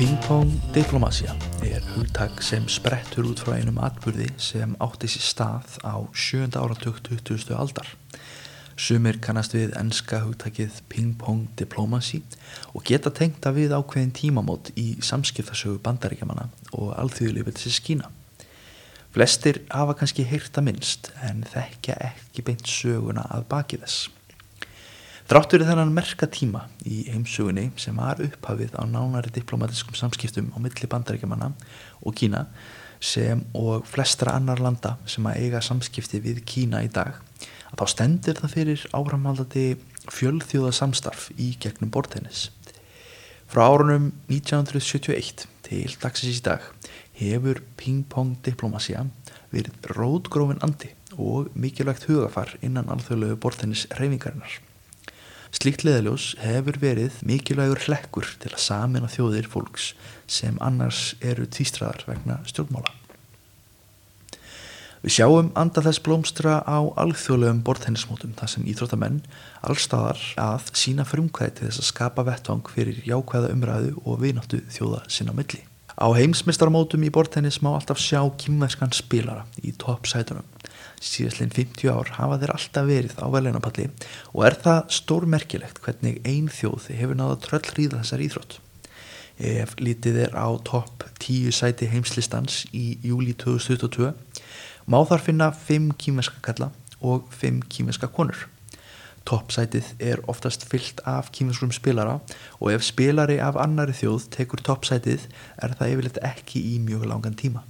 Ping-pong diplomasía hugtak sem sprettur út frá einum atburði sem átti sér stað á 7. áratug 20. aldar. Sumir kannast við enska hugtakið ping-pong diplomacy og geta tengt að við ákveðin tímamót í samskiptasögu Bandaríkjamanna og alþýðulýðveldisins Kína. Flestir hafa kannski heyrt það minnst en þekkja ekki beint söguna að baki þess. Þrátt fyrir þennan merka tíma í heimsögunni sem var upphafið á nánari diplomatískum samskiptum á milli Bandaríkjamanna og Kína sem og flestra annar landa sem að eiga samskipti við Kína í dag, að þá stendur það fyrir áframhaldandi fjölþjóðasamstarf í gegnum borðtennis. Frá árunum 1971 til dagsins í dag hefur ping-pong diplomasía verið rótgrófinn andi og mikilvægt hugafar innan alþjóðlegu borðtennis hreyfingarinnar. Slíkt leiðarljós hefur verið mikilvægur hlekkur til að sameina þjóðir fólks sem annars eru tvístraðar vegna stjórnmála. Við sjáum anda þess blómstra á alþjóðlegum borðtennismótum þar sem íþróttamenn allstaðar að sýna frumkvæði til þess að skapa vettvang fyrir jákvæða umræðu og vináttu þjóða sinna á milli. Á heimsmeistaramótum í borðtennis má alltaf sjá kínverskan spilara í toppsætunum. Síðastliðin 50 ár hafa þeir alltaf verið á verðlaunapalli og er það stórmerkilegt hvernig ein þjóð hefur náð að tröllríða þessar íþrótt. Ef litið er á topp 10 sæti heimslistans í júlí 2022 má þar finna 5 kínverska kalla og 5 kínverska konur. Toppsætið er oftast fyllt af kínverskum spilara og ef spilari af annari þjóð tekur toppsætið er það yfirleitt ekki í mjög langan tíma.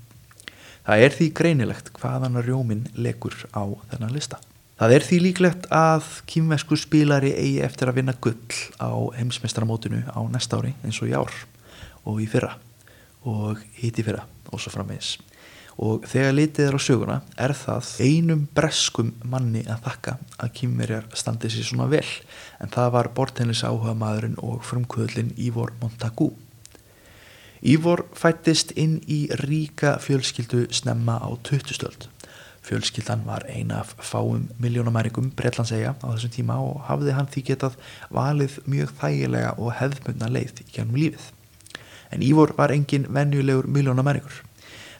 Það er því greinilegt hvaðan rjóminn lekur á þennan lista. Það er því líklegt að kínverskur spilari eigi eftir að vinna gull á heimsmeistaramótinu á næsta ári eins og í ár og í fyrra og hitt í fyrra og svo framvegis. Og þegar litið er á söguna er það einum breskum manni að þakka að Kínverjar standi sér svona vel en það var borðtennis áhuga maðurinn og frumkvöðlinn Ivor Montagu. Ivor fæddist inn í ríka fjölskyldu snemma á 20. öld. Fjölskyldan var ein af fáum milljónamæringum Bretlandseyja á þessum tíma og hafði hann því getað valið mjög þægilega og hefðbundna leið í gegnum lífið. En Ivor var engin venjulegur milljónamæringur.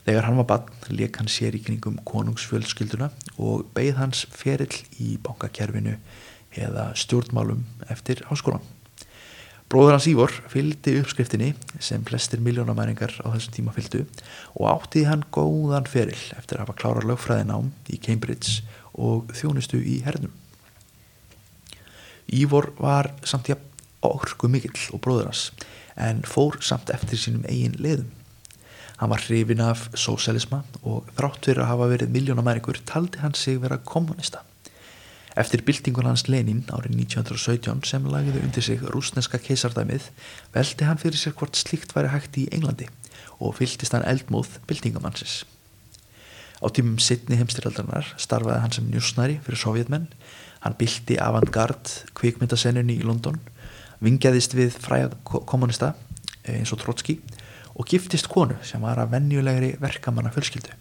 Þegar hann var barn lék hann sér í kringum konungsfjölskylduna og beið hans ferill í bankakerfinu eða stjórnmálum eftir háskólan. Bróðir hans Ivor fylgdi uppskriftinni sem flestir milljónamæringar á þessum tíma fylgdu og átti hann góðan ferill eftir að hafa klárað lögfræðinám í Cambridge og þjónustu í hernum. Ivor var samt jafn orkumikill og bróðir hans en fór samt eftir sínum eigin leiðum. Hann var hrifinn af sósíalisma og þrátt fyrir að hafa verið milljónamæringur taldi hann sig vera kommunista. Eftir byltingun hans Lenin árið 1917 sem lagði undir sig rússneska keisardæmið velti hann fyrir sér hvort slíkt væri hægt í Englandi og fylgdist hann eldmóð byltingamannsins. Á tímum seinni heimsstyrjaldarinnar starfaði hann sem njósnari fyrir sovjetmenn, hann bylti avantgard kvikmyndasennunni í London, vingjaðist við fræga kommunista eins og Trotski og giftist konu sem var af venjulegri verkamanna fjölskyldu.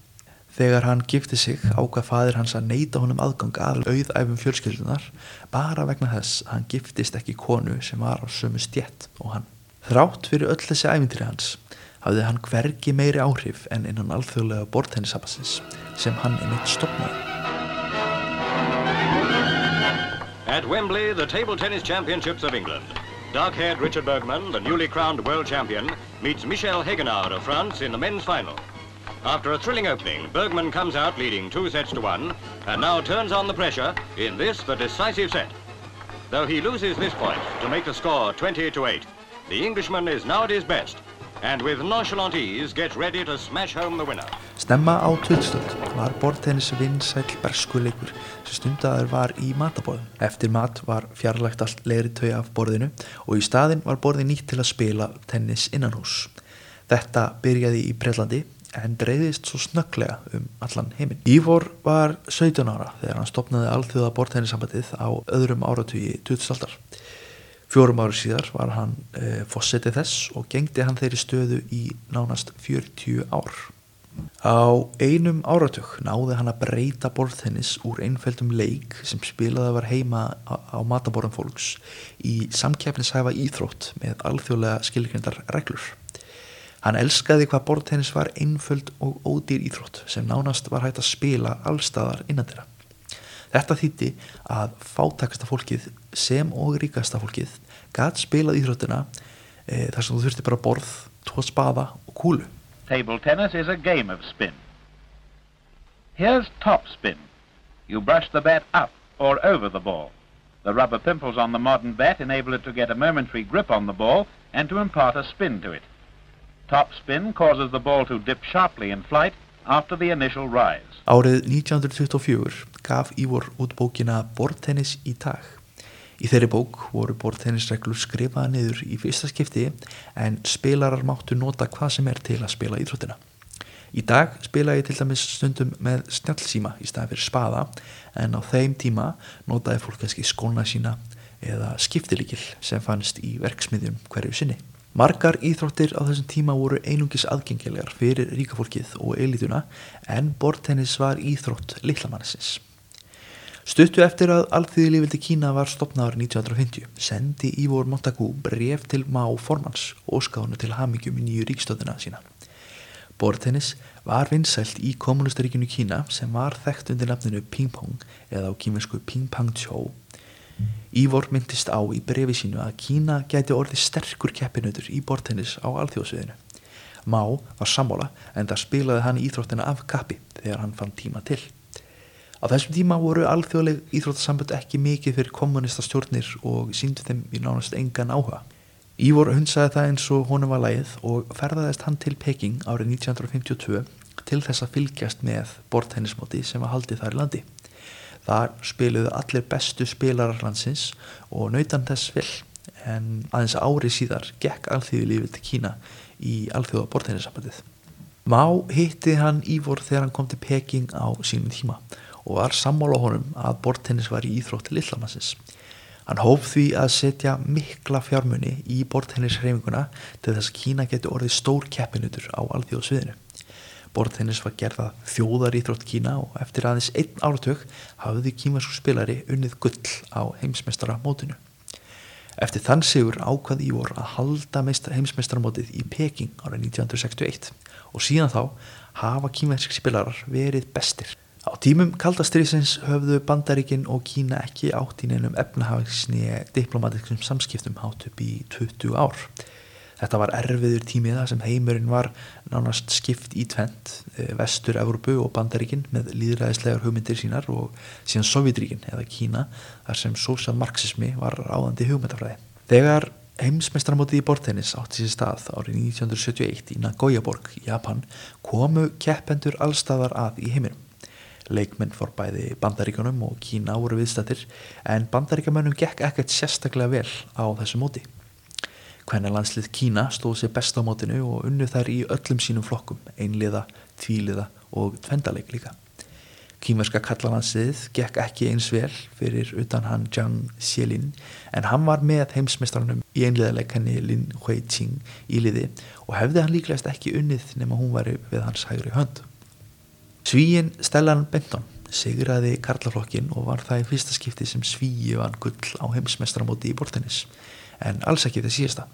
Þegar hann gifti sig ákvað faðir hans að neita honum aðgang að auðæfum fjölskyldunar bara vegna þess að hann giftist ekki konu sem var á sömu stétt og hann. Þrátt fyrir öll þessi ævintýri hans hafði hann hvergi meiri áhrif en innan alþjóðlega borðtennissambandsins sem hann einmitt stofnaði. At Wembley, the Table Tennis Championships of England. Dark-haired Richard Bergman, the newly crowned world champion, meets Michel Hegenard of France in the men's final. After a thrilling opening, Bergman comes out leading 2-1 and now turns on the pressure in this, the decisive set. Though he loses this point to make the score 20-8, the Englishman is now at his best. and with nonchalant ease gets ready to smash home the winner. Snemma á 2000 var borðtennis vinsæll berskuleikur sem stundaður var í matarborðum. Eftir mat var fjarlægt allt leðritau af borðinu og í staðinn var borðið nýtt til að spila tennis innanhús. Þetta byrjaði í Bretlandi en dreifðist svo snögglega allan heiminn. Ivor var 17 ára þegar hann stofnaði alþjóða borðtennissambandið á öðrum áratugi 20. aldar. 4 árum síðar var hann forseti þess og gegndi hann þeirri stöðu í nánast 40 ár. Á einum áratug náði hann að breyta borðtennis úr einföldum leik sem spilaði var heima á matarborðum fólks í samkeppnishæfa íþrótt með alþjóðlega skilgreindar reglur. Hann elskaði hvað borðtennis var einföld og ódýr íþrótt sem nánast var hægt að spila allstaðar innandyra. Þetta þýddi að fátækasta fólkið sem og ríkasta fólkið gat spilað íþróttina þar sem þú þurfti bara borð, 2 spaða og kúlu. Table tennis is a game of spin. Here's top spin. You brush the bat up or over the ball. The rubber pimples on the modern bat enable it to get a momentary grip on the ball and to impart a spin to it. Top spin causes the ball to dip sharply in flight after the initial rise. Árið 1924 gaf Ivor út bókina Borðtennis í dag. Í þeirri bók voru borðtennisreglur skrifaðar niður í fyrsta skipti en spilarar máttu nota hvað sem til að spila íþróttina. Í dag spila ég til dæmis stundum með snjallsíma í staðinn fyrir spaða en á þeim tíma notaði fólk kannski skóna sína eða skiptilykil sem fannst í verksmiðjum hverju sinni. Margar íþróttir á þessum tíma voru einungis aðgengilegar fyrir ríka fólkið og elítuna en borðtennis var íþrótt litlamannsins. Stuttu eftir að alþýðulýðveldi Kína var stofnaður 1950 sendi Ivor Montagu bréf til Mao formans og óskaði honum til hamingju með nýju ríkisstjórnina sína. Borðtennis var vinsælt í kommúnistaríkinu Kína sem var þekkt undir nafninu ping-pong eða á kínversku ping-pong-tjó. Ivor myndist á í bréfi sínu að Kína gæti orðið sterkur keppinautur í borðtennis á alþjóðasviðinu. Mao var sammála en það spilaði hann íþróttina af kappi þegar hann fann tíma til. Á þessum tíma voru alþjóðleg íþróttasambönd ekki mikið fyrir kommunistastjórnir og sýndu þeim í nánast engan áhuga. Ivor hunsaði það eins og honum var lagið og ferðaðist hann til Peking árið 1952 til þess að fylgjast með borðtennismóti sem var haldið þar í landi. Þar spiluðu allir bestu spilarar landsins og naut hann þess vel en aðeins ári síðar gekk alþýðulýðveldi Kína í alþjóða borðtennissambandið. Mao hitti hann Ivor þegar hann kom til Peking á sínum tíma og var sammála honum að borðtennis var í íþrótt litlamannsins. Hann hóf því að setja mikla fjármuni í borðtennishreyfinguna til þess að Kína geti orðið stór keppinutur á alþjóðasviðinu. Borðtennis var gerð að þjóðaríþrótt Kína og eftir aðeins 1 áratug hafði kínverskur spilari unnið gull á heimsmeistaramótinu. Eftir þann sigur ákvað Ivor að halda heimsmeistaramótið í Peking árið 1961 og síðan þá hafa kínverskir spilarar verið bestir. Á tímum kalda stríðsins höfðu Bandaríkin og Kína ekki átt í neinum efnahagsni diplomatikum samskiptum hátt upp í 20 ár. Þetta var erfiður tími þar sem heimurinn var nánast skipt í tvennt, Vestur-Evrópu og Bandaríkin með lýðræðislegar hugmyndir sínar og síðan Sovétríkin eða Kína þar sem sósíalmarxismi var ráðandi hugmyndafræði. Þegar heimsmeistaramótið í borðtennis átti sér stað árið 1971 í Nagoya-borg í Japan komu keppendur allstaðar að í heiminum. Leikmenn fór bæði Bandaríkjunum og Kína voru viðstaddir en Bandaríkjamönnum gekk ekkert sérstaklega vel á þessu móti. Kvennalandslið Kína stóð sér best á mótinu og unnu þær í öllum sínum flokkum, einliða, tvíliða og tvendaleik líka. Kínverska karlalandsliðið gekk ekki eins vel fyrir utan hann Jiang Zemin en hann var með heimsmeistarunum í einliðaleik henni Lin Huiqing í liði og hefði hann líklegast ekki unnið nema hún væri við hans hægri hönd. Svíinn Stellan Benton sigraði karlaflokkin og var það í fyrsta skipti sem Svíi vann gull á heimsmeistaramóti í borðtennis en alls ekki það síðasta.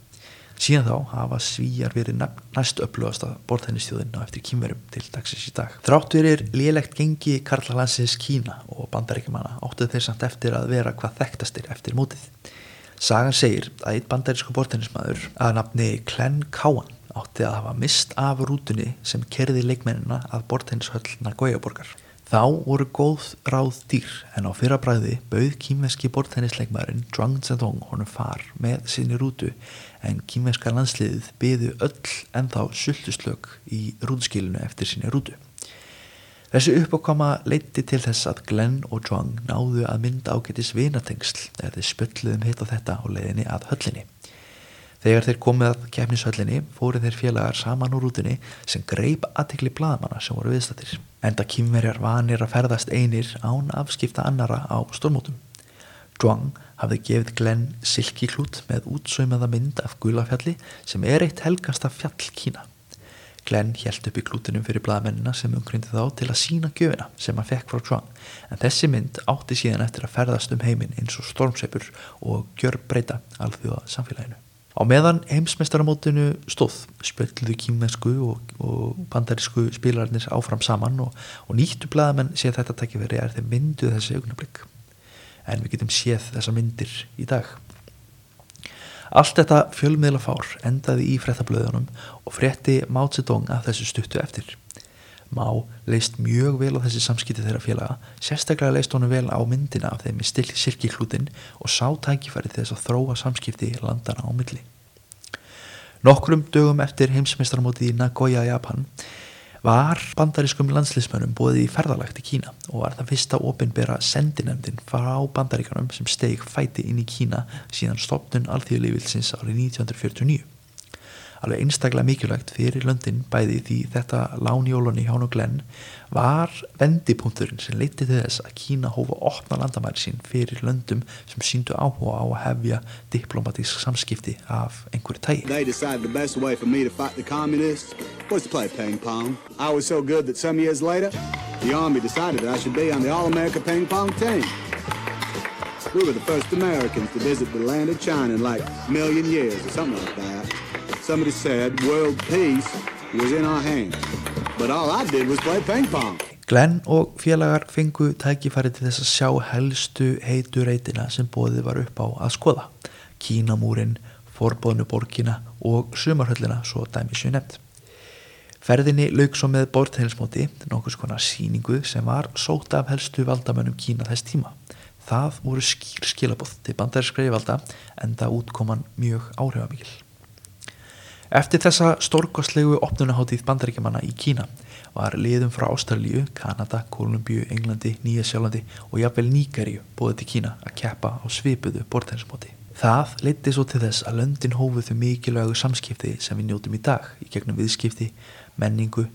Síðan þá hafa Svíjar verið næst öflugasta borðtennisþjóðin á eftir Kínverjum til dagsins í dag. Þrátt fyrir lélegt gengi karlalandsins Kína og Bandaríkjamanna áttu þeir samt eftir að vera hvað þekktastir eftir mótið. Sagan segir að einn bandarískur borðtennismaður að nafni Glenn Cowan átti að hafa mist af rútunni sem keyrði leikmennina að borðtennishöll Nagoya-borgar. Þá voru góð ráð dýr en á fyrra bragði bauð kínverski borðtennisleikmaðurinn Zhuang Zedong honum far með sinni rútu en kínverska landsliðið biðu öll ennþá sultuslök í rútuskilinu eftir sinni rútu. Þessi uppákoma leiddi til þess að Glenn og Zhuang náðu að mynda ágætis vinatengsl þegar þeir spölluðum hitt á þetta á leiðinni að höllinni. Þegar þeir komið að keppnishöllinni fóru þeir félagar saman úr rútunni sem greip athygli blaðamanna sem voru viðstaddir. Enda Kínverjar vanir að ferðast einir án afskipta annara á stórmótum. Zhuang hafði gefið Glenn silkiklút með útsaumaða mynd af Gulafjalli sem eitt helgasta fjall Kína. Glenn hélt upp í klútinum fyrir blaðamennina sem umkringdi þá til að sýna gjöfina sem hann fekk frá Zhuang, en þessi mynd átti síðan eftir að ferðast heiminn eins og stormsveipur og gjörbreyta alþjóða samfélaginu. Á meðan heimsmeistaramótinu stóð spjölluðu kínversku og bandarísku spilararnir áfram saman og nýttu blaðamenn séð þetta tækifæri þeir mynduðu þessi augnablik. En við getum séð þessa myndir í dag. Allt þetta fjölmiðlafár endaði í fréttablöðunum og frétti Mao Zedong að þessu stuttu eftir. Mao leist mjög vel á þessi samskipti þeirra félaga, sérstaklega leist honum vel á myndina af þeim í silkiklútin og sá tækifæri þess að þróa samskipti landana á milli. Nokkrum dögum eftir heimsmeistaramótið í Nagoya, Japan, var bandarískum landsliðsmönnum boðið í ferðalag til Kína og var það fyrsta opinbera sendinefndin frá Bandaríkjunum sem steig fæti inn í Kína síðan stofnun alþýðulýðveldisins árið 1949. Alveg einstaklega mikilvægt fyrir löndin bæði því þetta lán í jólunni hjá og Glenn var vendipunkturinn sem leiddi til þess að Kína hóf að opna landamæri sín fyrir löndum sem sýndu áhuga á að hefja diplomatísk samskipti af einhverju tagi. They decided the best way for me to fight the communists was to play ping pong. I was so good that some years later, the army decided that I should be on the All-America ping pong team. We were the first Americans to visit the land of China in like a million years or something like that. Somebody said world peace was in our hands, but all I did was play ping pong. Glenn og félagar fengu tækifæri til þess að sjá helstu heitu reitina sem boðið var upp á að skoða. Kínamúrin, forboðnu borgina og sumarhöllina, svo dæmi séu nefnt. Ferðinni lauk svo með borðtennismóti, nokkurs konar sýningu sem var sótt af helstu valdamönnum Kína þess tíma. Það voru skýr skilaboð til bandarískra yfirvalda enda útkoman mjög áhrifamikil. Eftir þessa stórkostlegu opnunarhátíð Bandaríkjamanna í Kína var liðum frá Ástralíu, Kanada, Kólumbíu, Englandi, Nýja-Sjálandi og jafnvel Nígeríu boðið til Kína að keppa á svipuðu borðtennismóti. Það leiddi svo til þess að löndin hófu þau mikilvægu samskipti sem við njótum í dag í gegnum viðskipti, menningu,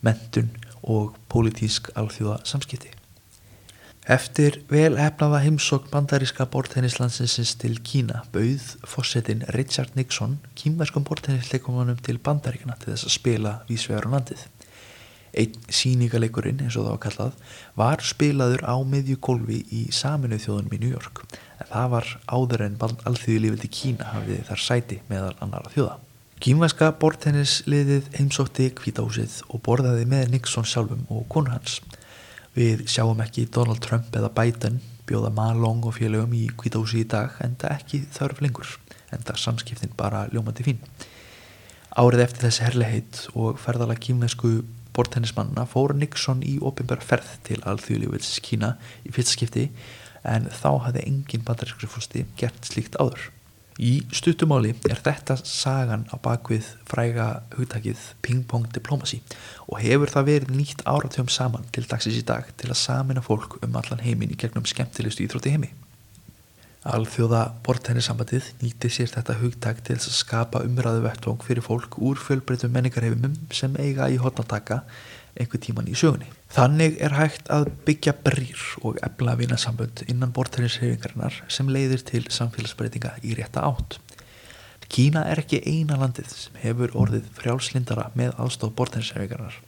menntun og pólitísk alþjóða samskipti. Eftir vel heppnaða heimsókn bandaríska borðtennislandsins til Kína bauð forsetinn Richard Nixon kínverskum borðtennisleikumannum til Bandaríkjanna til þess að spila víðsvegar á landið. Einn sýningaleikurinn, eins og það var kallað, var spilaður á miðju gólfi í Sameinuðu þjóðunum í New York, en það var áður en alþýðulýðveldi Kína hafði þar sæti meðal annarra þjóða. Kínverska borðtennisliðið heimsótti Hvíta húsið og borðaði með Nixon sjálfum og konu hans. Við sjáum ekki Donald Trump eða Biden bjóða Ma Long og félögum í Hvíta húsið í dag, enda ekki þörf lengur, enda samskiptin bara ljómandi fín. Árið eftir þessi herlegheit og ferðalag kínversku borðtennismannana fór Nixon í opinbera ferð til alþýðulýðveldisins Kína í fyrsta skipti, en þá hafði engin bandarískur forseti gert slíkt áður. Í stuttumáli þetta sagan á bakvið fræga hugtakið ping-pong diplomacy og hefur það verið nýtt áratugum saman til dagsins í dag til að sameina fólk allan heiminn í gegnum skemmtilegustu íþrótt í heimi. Alþjóða borðtennissambandið nýtti sér þetta hugtak til þess að skapa umræðu vettvang fyrir fólk úr fjölbreyttum menningarheimum sem eiga í horn að taka einhver tíman í sögunni. Þannig hægt að byggja brýr og efla vinasambönd innan borðtennishreyfingarinnar sem leiðir til samfélagsbreytinga í rétta átt. Kína ekki eina landið sem hefur orðið frjálslyndara með aðstoð borðtennishreyfingarinnar,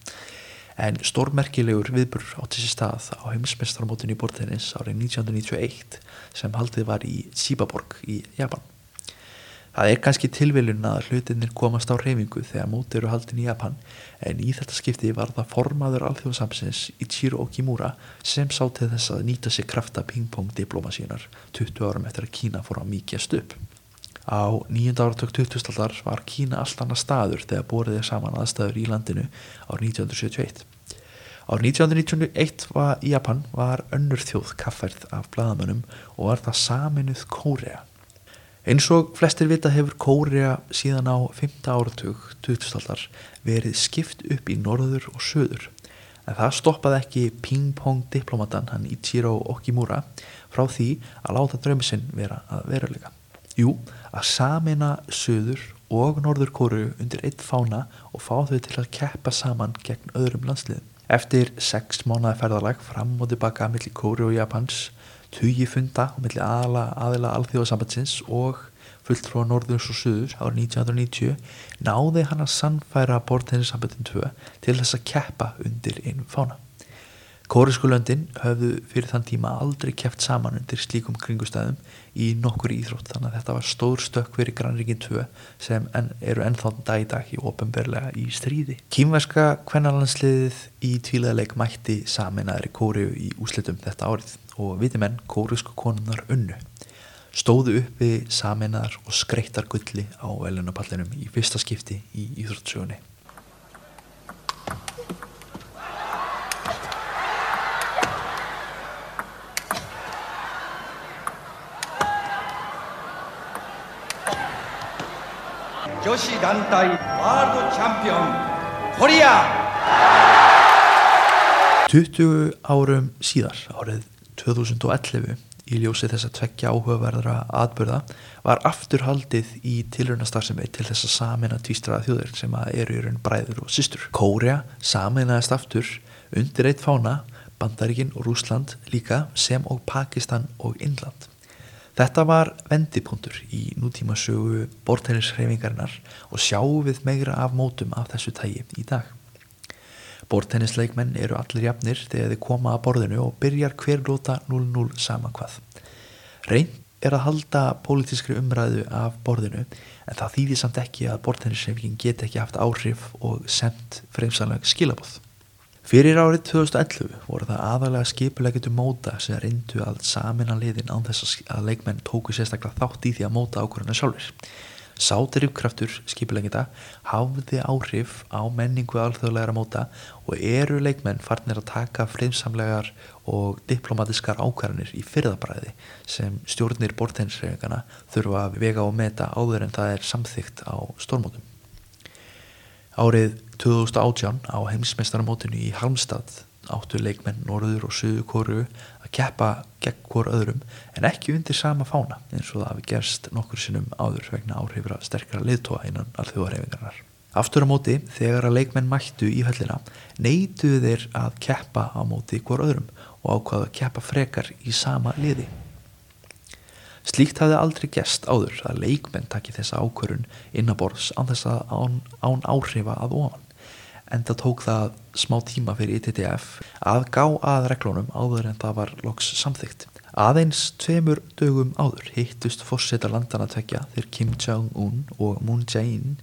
en stórmerkilegur viðburður átti sér stað á heimsmeistaramótinu í borðtennis árið 1991 sem haldið var í Shibaborg í Japan. Það kannski tilviljun að hlutirnir komast á hreyfingu þegar mót eru haldin í Japan, en í þetta skipti var það formaður alþjóðasambandsins Ichiro Okimura sem sá til þess að nýta sér krafta ping-pong diplomasíunar 20 árum eftir að Kína fór að mýkjast upp. Á 9. áratug 20. aldar var Kína allt annað staður þegar borið saman aðstæður í landinu árið 1971. Árið 1991 í Japan var önnur þjóð kaffærð af blaðamönnum og var það Sameinuð Kórea. Eins og flestir vita hefur Kórea síðan á 5. áratug 2000-aldar verið skipt upp í norður og söður. En það stoppaði ekki ping-pong diplomatan hann Ichiro Okimura frá því að láta draumi sinn vera að veruleika. Jú, að sameina söður og norður Kóreu undir einn fána og fá þau til að keppa saman gegn öðrum landsliðum. Eftir 6 mánaða ferðalag fram og tilbaka milli Kóreu og Japans, tugi funda á milli aðila alþjóðasambandsins og fulltrúa norðurs og suðurs árið 1990 náði hann að sannfæra borðtennissamböndin 2 til þess að keppa undir einum fána. Kóresku löndin höfðu fyrir þann tíma aldrei keppt saman undir slíkum kringustæðum í nokkur íþrótt, þannig að þetta var stór stökk fyrir grannríkin 2 sem eru ennþá dag í dag í opinberlega í stríði. Kínverska kvennalandsliðið í tvíliðaleik mætti sameinaðri Kóreu í úrslitum þetta árið og vitimenn kóresku konunnar unnu. Stóðu uppi sameinaðar og skreyttar gulli á verðlaunapallinum í fyrsta skipti í íþróttsögunni. Joshi Dantai World Champion Korea. 20 árum síðar, árið 2011, í ljósi þessa 2 áhugaverðra atburða, var aftur haldið í tilraunastarfsemi til þess að sameina tvístraða þjóðir sem eru í raun bræður og systur. Kórea sameinaðist aftur undir einn fána, Bandaríkin og Rússland líka, sem og Pakistan og Indland. Þetta var vendipunktur í nútímasögu borðtennishreyfingarinnar og sjáum við meira af mótum af þessu tagi í dag. Borðtennisleikmenn eru allir jafnir þegar þeir koma að borðinu og byrjar hver lóta 0-0 sama hvað. Reynt er að halda pólitískri umræðu af borðinu en það þýðir samt ekki að borðtennishreyfingin geti ekki haft áhrif og sent fremsanleg skilaboð. Fyrir árið 2011 voru það aðalega skipuleggjendur móta sem reyndu að sameina liðin án þess að leikmenn tóku sérstaklega þátt í því að móta ákvörðuna sjálfir. Sá drifkraftur skipuleggjenda hafði áhrif á menningu alþjóðlegra móta og eru leikmenn farnir að taka friðsamlegar og diplomatiskar ákvarðanir í fyrðabræði sem stjórnir borðtennishreyfinganna þurfa að vega og meta áður en það samþykkt á stórmótum. Árið 2018 á heimsmeistaramótinu í Halmstad áttu leikmenn Norður og Suður Kóreu að keppa gegn hvor öðrum en ekki undir sama fána eins og það hafi gerst nokkur sinnum áður vegna áhrifra sterkara leiðtoga innan alþjóðahreyfingarinnar. Aftur á móti, þegar að leikmenn mættu í höllina, neituðu þeir að keppa á móti hvor öðrum og ákváðu að keppa frekar í sama liði. Slíkt hafði aldrei gerst áður að leikmenn taki þessa ákvörðun innanborðs án áhrifa að ofan. Enda tók það smá tíma fyrir ITTF að gá að reglunum áður en það var loks samþykkt. Aðeins 2 dögum áður hittust forsetar landanna tveggja, þeir Kim Jong-un og Moon Jae-in,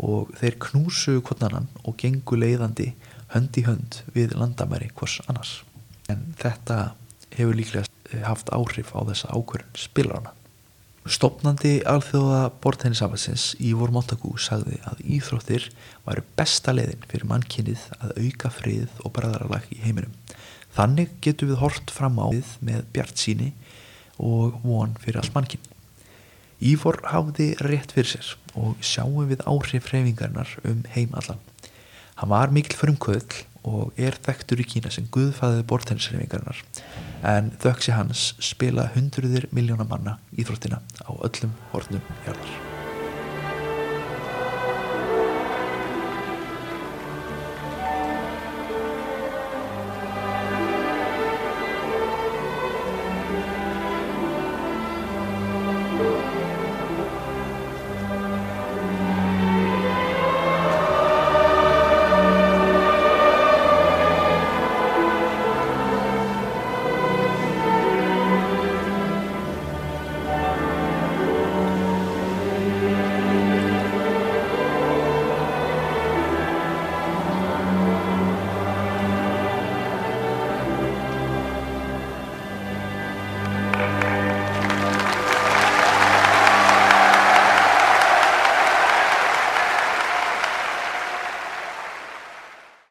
og þeir knúsuðu hvorn annan og gengu leiðandi hönd í hönd við landamæri hvors annars. En þetta hefur líklega haft áhrif á þessa ákvörðun spilarana. Stofnandi alþjóða borðtennissambandsins Ivor Montagu sagði að íþróttir væru besta leiðin fyrir mannkynið að auka frið og bræðralag í heiminum. Þannig getum við hort fram á við með bjartsýni og von fyrir allt mannkyn. Ivor hafði rétt fyrir sér og sjáum við áhrif hreyfingarinnar heim allan. Hann var mikill frumkvöðl og þekktur í Kína sem guðfaðir borðtennishreyfingarinnar en þökk sé hans spila hundruðir milljóna manna íþróttina á öllum hornum jarðar.